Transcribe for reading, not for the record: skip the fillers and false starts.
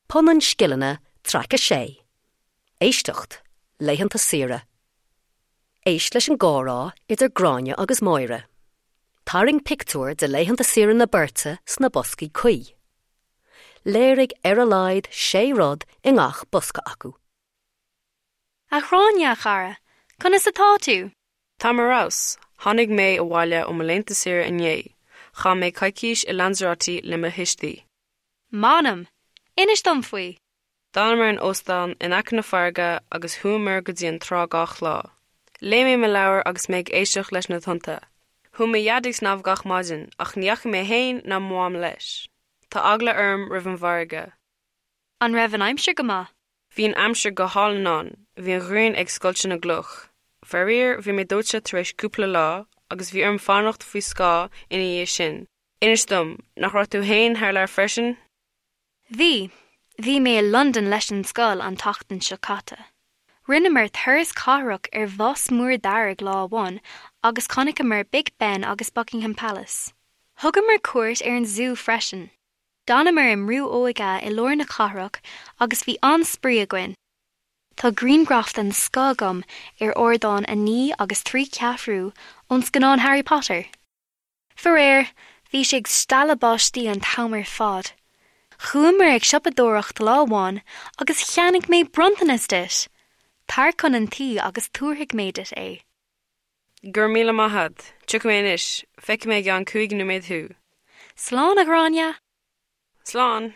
Punann Scileanna, Traic 6. Éisteacht, Laethanta Saoire. Éist leis an gcomhrá idir Gráinne agus Máire. Tarraing pictiúr de laethanta saoire na beirte sna boscaí cuí. Léirigh ar a laghad sé rud i ngach bosca acu. A Ghráinne, a chara, conas atá tú? Táim ar fheabhas. Tháinig mé abhaile ó mo laethanta saoire inné. Chaith mé coicís i Lanzarote le mo thuistí. M'anam! Inis dom faoi! D'fhanamar in óstán in aice na farraige agus chuamar go dtí an trá gach lá. Léigh mé mo leabhar agus mé ag éisteacht leis na tonnta. Chuaigh mo dhaid ag snámh gach maidin ach ní dheachaigh mé féin ná mo mham leis. Tá eagla orm roimh an bhfarraige. An raibh an aimsir go maith? Bhí an aimsir go hálainn ann, bhí an ghrian ag scoilteadh na gcloch. Faraor, bhí mé dóite tar éis cúpla lá agus bhí orm fanacht faoi scáth ina dhiaidh sin. Inis dom, nach raibh tú féin thar lear freisin? Bhí. Bhí mé i Londain leis an scoil an tseachtain seo caite. Rinneamar turas cathrach ar bhus mór dearg lá amháin agus chonaiceamar Big Ben agus Buckingham Palace. Thugamar cuairt ar an zú freisin. D'fhanamar i mbrú óige i lár na cathrach agus bhí an-spraoi againn. Tá grianghraf den scoth agam ar ardán 9 agus 3 ceathrú ón scannán Harry Potter. Faraor, bhí sé ag stealladh báistí an t-am ar fad. Chuamar ag siopadóireacht lá amháin agus cheannaigh mé bronntanas duit! Tar chun an tí agus tabharfaidh mé duit é. Go raibh míle maith a't. Tiocfaidh mé anois. Feicfidh mé i gceann 5 nóiméad thú. Slán, a Ghráinne! Slán!